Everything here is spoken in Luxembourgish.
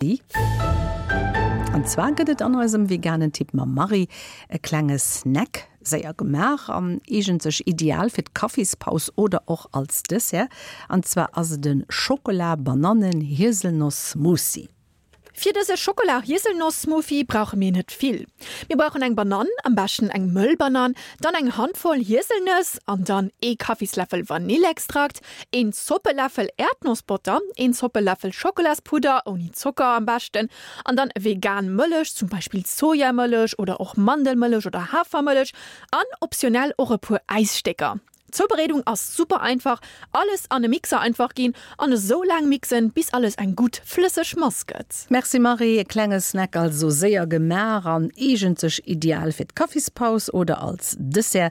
An zwar gëtt et an eisem veganen Tipp mam Marie e klenge Snack, séier gemaach an eegent sech ideal fir d'Kaffispaus oder och als Dessert. An zwar ass et e Schokola-Banannen-Hieselnoss-Smoothie. Fir dëse Schokola-Hieselnoss-Smoothie brauche mir net vill. Mir brauchen eng Banann, am beschten eng mëll Banann, dann eng Handvoll Hieselnëss an dann ee Kaffisläffel Vanillextrakt, een Zoppeläffel Äerdnossbotter, een Zoppeläffel Schokolaspudder, ouni Zocker am beschten, an dann vegan Mëllech, zum Beispill Sojamëllech oder och Mandelmëllech oder Hafermëllech an optionell och e puer Äisstécker. D'Zoubereedung ass super einfach, alles an e Mixer einfach ginn an esou laang mixen bis alles eng gutt flësseg Mass gëtt. Merci Marie, e klenge Snack also séier gemaach an eegent sech ideal fir d'Kaffispaus oder als Dessert.